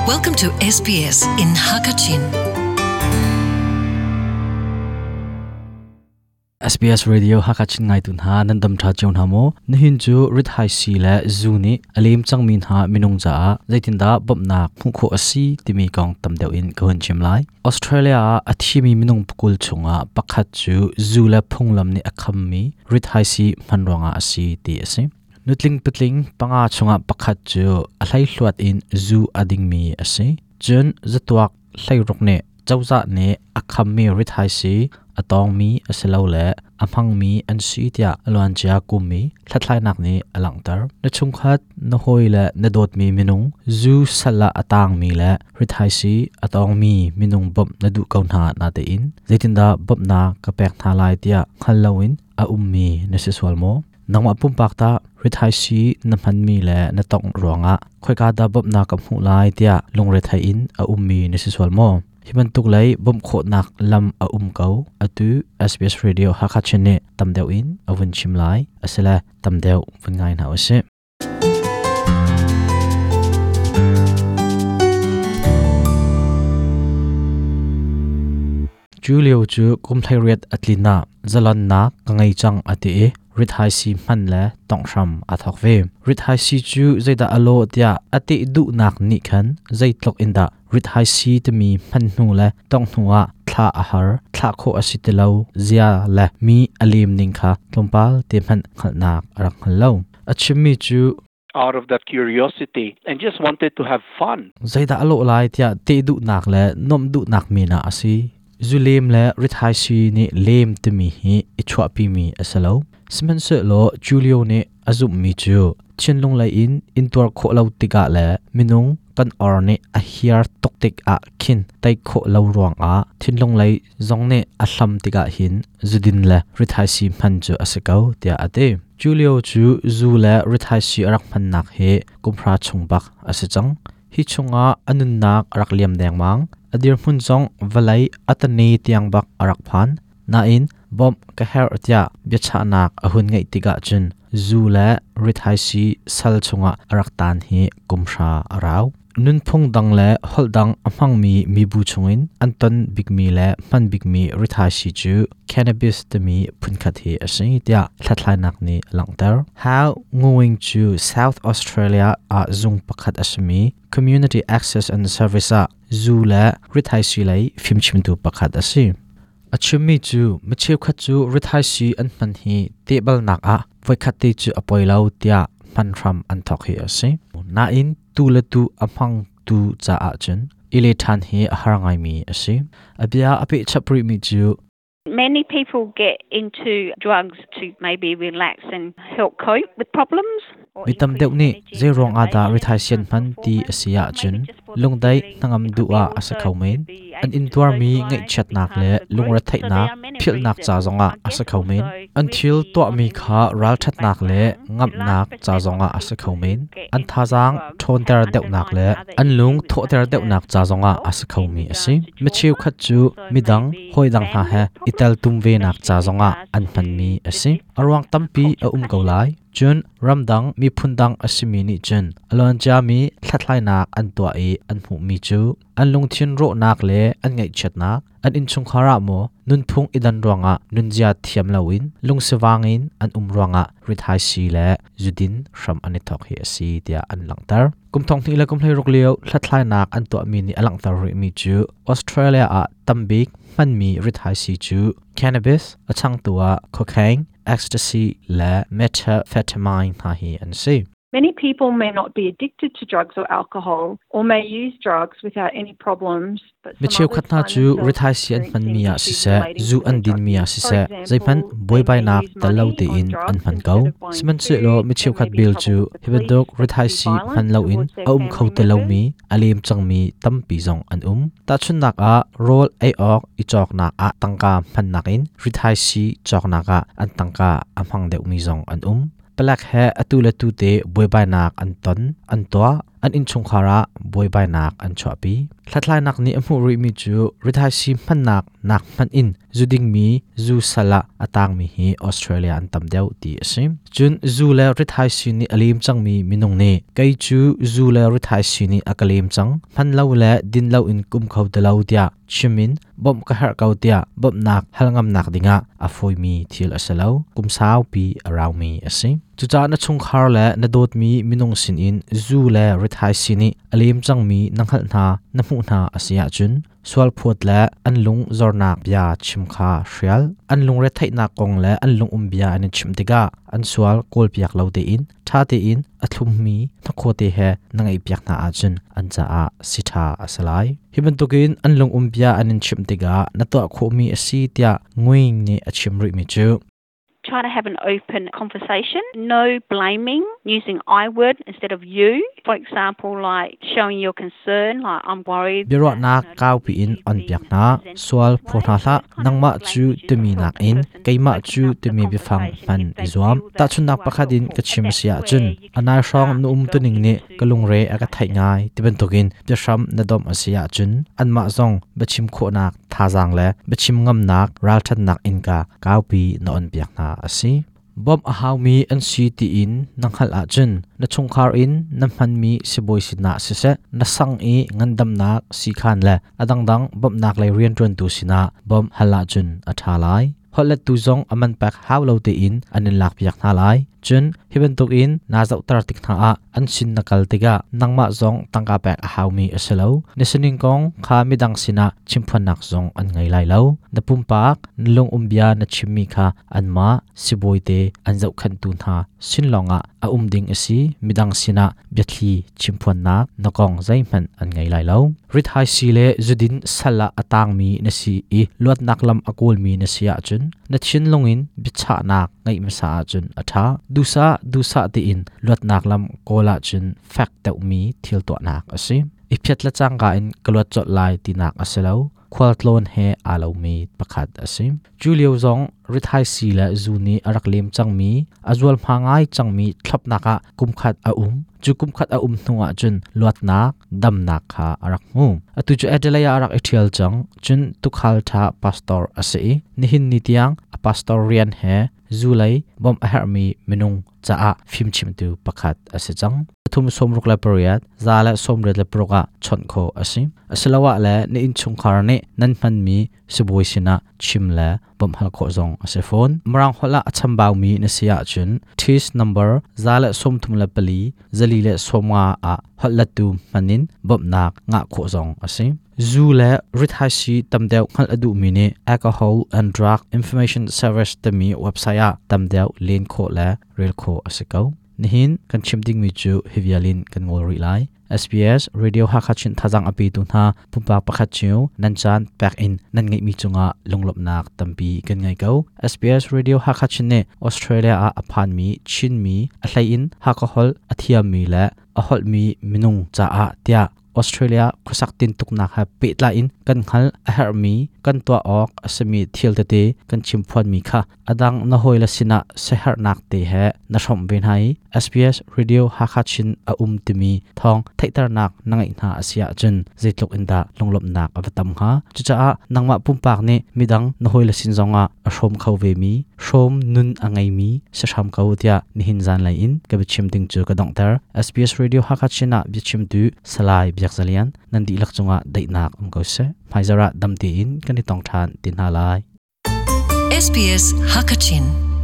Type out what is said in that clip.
Welcome to SBS in Hakachin. SBS Radio Hakachin ngaitu hna nan dam tha cio hna maw? Nihin cu rit-hai si le zu nih a lem cangmi hna minung caah zeitindah bawmhnak hmuh khawh a si timi kong tam deuh in ka hun chim lai. Australia ah a thimi minung pakul chungah pakhat cu zu le phunglam nih a khammi rithaisii hman ruangah a si ti a si. Nutling patling panga chungah pakhat cu a hleihluat in zu a dingmi a si. Cun zatuak hleiruk nih cozah nih a khammi rithaisii a tawngmi asilole a hmangmi an si tiah a luancia kum i hlathlainak nih a langhter. Na chungkhat, na hawi le na dawtmi minung zu sal ah a taangmi le rithaisii a tawngmi minung bawmh na duh ko hna natein zeitindah bawmhnak ka pek hna lai tiah hngal loin a ummi na si sual maw? Nangmah pumpak tah rithaisii na hmanmi le na tongh ruangah khoika dah bawmhnak ka hmuh lai tiah lungrethei in a ummi na si sual maw? Hi bantuk lei bawmh khawhnak lam a um ko. Atu SBS Radio Hakha Chin nih tam deuh in a vun chim lai. Asile tam deuh vun ngai hna usih. Julio cu kum 18 a tlin ah zalonnak ka ngei cang a ti i rithaisii hman le tonghram aa thawk ve. Rithaisii cu zeidah a lawh tiah a teh duhnak nih khan zeitluk in dah rithaisii timi hman hnu le tongh hnu ah thlah a har, thlah khawh a si ti lo zia le mi a lem ning kha tlawmpal te hmanh hngalhnak a rak hngal lo. A chimmi cu out of that curiosity and just wanted to have fun. Zeidah a lawh lai tiah teh duhnak le nuamh duhnak men ah a si. Zulem le rithaisii nih lem timi hi i chuahpimi a si lo. Sihmanhsehlaw Julio nih a zumhmi cu thinlung lei in intuar khawh lo tikah le minung kan or nih a hiar tuk tikah khin tei khawh lo ruangah thinlung lei zong nih a hlam tikah hin zudin le rithaisii hman cu a si ko tiah a ti. Julio cu zu le rithaisii a rak hmannak hi kumhra chung bak a si cang. Hi chungah a nunnak a rak liam dengmang. A dirhmun zong vawlei a tane tiang bak a rak phan. Nain bawmh ka herh tiah biachahnak a hun ngeih tikah cun zu le rithaisii sal chungah a rak taan hi kumhra a rau. Nunphung dang le holh dang a hmangmi mibu chungin an ton bikmi le hman bikmi rithaisii cu cannabis timi phunkhat hi a si tiah hlathlainak nih a langhter. How Nguyen cu South Australia ah zung pakhat a simi Community Access and Service ah zu le rithaisii lei fimchimtu pakhat a si. A chimmi cu mi cheukhat cu rithaisii an hman hi tehbalnak ah voikhat te cu a poi lo tiah hman hram an thawk hi a si. Nain tu le tu a hmangtu caah cun i le ṭhan hi a har ngaimi a si. A bia a peh chap rihmi cu Many people get into drugs to maybe relax and help cope with problems. Mi tam deuh nih zeiruang ah dah rithaisii an hman ti a si ahcun lungdaih hnangam duh ah a si kho men. An intuarmi ngaihchiatnak le lungretheihnak philhnak ca zongah a si kho men. An thil tuahmi kha ralṭhatnak le ngamhnak ca zongah a si kho men. An thazaang ṭhawnter deuhnak le an lung thawhter deuhnak ca zongah a si khomi a si. Mi cheukhat cu midang, hawidang hna he i teltum venak ca zongah an hmanmi a si. A ruang tampi a um ko lai. Cun ramdang miphun dang a simi nih cun a luanciami hlathlainak an tuah i an hmuhmi cu an lungthin rawhnak le an ngaihchiatnak, an innchungkhar ah maw nunphung i dan ruangah nunzia thiam loin lungsivang in an um ruangah rithaisii le zudin hram an i thawk hi a si tiah an langhter. Kum thong hnih le kum 16 lio hlathlainak an tuahmi nih a langhter rihmi cu Australia ah tambik hmanmi rithaisii cu cannabis, a changtu ah cocaine, ecstasy le methamphetamine hna hi an si. Many people may not be addicted to drugs or alcohol or may use drugs without any problems. Mi cheukhat hna cu rithaisii an hmanmi ah siseh, zu an dinmi ah siseh, zeihmanh buaibainak tel lo tein an hman ko. Sihmanhsehlaw mi cheukhat bel cu hi bantuk rithaisii hman loin a um kho ti lomi, a lem cangmi tampi zong an um. Tahchunhnak ah, rawl ei awk i cawknak ah tangka hmannak in rithaisii cawknak ah an tangka a hmang deuhmi zong an um. Palek he atu le tu te buaibainak an ton, an tuah. an innchungkhar ah buaibainak an chuahpi. Hlathlainak nih a hmuh rihmi cu rithaisii hmannak nak hmanh in zu dingmi zu sal ah a tangmi hi Australia an tam deuh ti a si. Cun zu le rithaisii nih a lem cangmi minung nih kei cu zu le rithaisii nih a ka lem cang, hman lo le din lo in kum kho ti lo tiah chim in bawmh ka herh ko tiah bawmhnak hal ngamnak dingah a fawimi thil a si lo. Kum saupi a raumi a si. Cucaah na chungkhar le na dawtmi minung sinin zu le rithaisii nih a lem cangmi na hngalh hna, na hmuh hna a si ahcun sualphawt le an lung zornak bia chim kha hrial. An lungretheihnak kong le an lungum bia an i chimh tikah an sual kawlpiak lo tein ṭha tein a thlummi hnakhaw te he na ngaihpiak hna ahcun an caah si ṭha a si lai. Hi bantukin an lungum bia an in chimh tikah na tuah khawhmi a si tiah Nguyen nih a chim rihmi cu Try to have an open conversation, no blaming, using I word instead of you. For example, like showing your concern, like I'm worried. Biaruahnak kaupi in on piak hna, sual phaw hna hlah, nangmah cu timi nakin keimah cu timi biafang hman i zuam. Tahchunhnak pakhat in ka chim si ahcun, anai hrawng na um tuning nih ka lungre a ka theih ngai ti bantukin biahram na domh a si ahcun anmah zong biachim khawhnak thazaang le biachim ngamnak ralṭhatnak innka kaupi na onpiak hna a si. Bawmh a haumi an si tiin na hngalh ahcun na chungkhar in na hmanmi sibawi sinah siseh, na sang i ngandamnak siikhan le a dangdang bawmhnak lei rianṭuantu sinah bawmh hal ahcun a ṭha lai. Holhlettu zong a man pek hau lo tein an in lakpiak hna lai. Cun hi bantukin naa zohter tik hna ah an sin na kal tikah nangmah zong tangka pek a haumi a si lo. Na sining kong kha midang sinah chimphuannak zong an ngei lai lo. Na pumpak, na lungum bia na chimmi kha anmah sibawi te an zohkhenhtu hna sin lawngah a um ding a si. Midang sinah biathli chimphuannak na kong zeihmanh an ngei lai lo. Rithaisii le zudin sal ah a tangmi na si i luatnak lam a kawlmi na si ahcun na thinlung in biachahnak ngeih hmasa ahcun a ṭha. Duhsah duhsah tiin luatnak lam kawl ahcun fek deuhmi thil tuahnak a si. I phiat le cangka in ka luat colh lai tinak a si lo. Khualtlawn he aa lomi pakhat a si. Cu lio zong rithaisii le zu nih a rak lem cangmi, a zualhma ngai cangmi thlopnak ah kumkhat a um. Cu kumkhat a um hnu ahcun luatnak, damnak kha a rak hmu. Atu cu Adelaide ah a rak i ṭhial cang. Cun tuukhal ṭha pastor a si i nihin ni tiang a pastor rian he zu lei bawmh a herhmi minung caah fimchimtu pakhat a si cang. Pathum sawmruk le pariat, za le sawmriat le paruk ah chawnh khawh a si. Asiloah le na innchungkhar nih nan hmanmi sibawi sinah chim le bawmh hal khawh zong a si fawn. Mirang holh ah a chambaumi na si ahcun TIS number 134 450 ah holhlettu hman in bawmhnak ngah khawh zong a si. Zu le rithaisii tam deuh hngalh a duhmi nih Alcohol and Drug Information Service timi website ah tam deuh len khawh le rel khawh a si ko. Nihin kan chim dingmi cu hi vial in kan ngol rih lai. SBS Radio Hakha Chin thazang a petu hna pumpak pakhat cio nan caan pek in nan ngeihmi cungah lunglawmhnak tampi kan ngei ko. SBS Radio Hakha Chin nih Australia ah a phanmi Chinmi a hlei in Hakha holh a thiammi le a holhmi minung caah tiah Australia khuasak tintuknak he pehtlai in kan hngalh a herhmi kan tuah awk a simi thil tete kan chimphuanmi kha a dang na hawile sinah siaherhnak te he na hrawmh ve hna i SBS Radio Hakha Chin a um timi thawng theihternak na ngeih hna a si ahcun zeitluk in dah lunglawmhnak a va tam hnga. Cucaah nangmah pumpak nih midang na hawile sin zongah a hrawm kho vemi, hrawm nun a ngeimi si hram ko tiah nihin zanlei in ka biachim ding cu ka donghter. SBS Radio Hakha Chin ah biachimtu Salai Biak Za Lian nan dihlak cungah daihnak um ko seh. Hmaizarh ah dam tein kan i tong ṭhan ti hna lai. SBS Hakachin.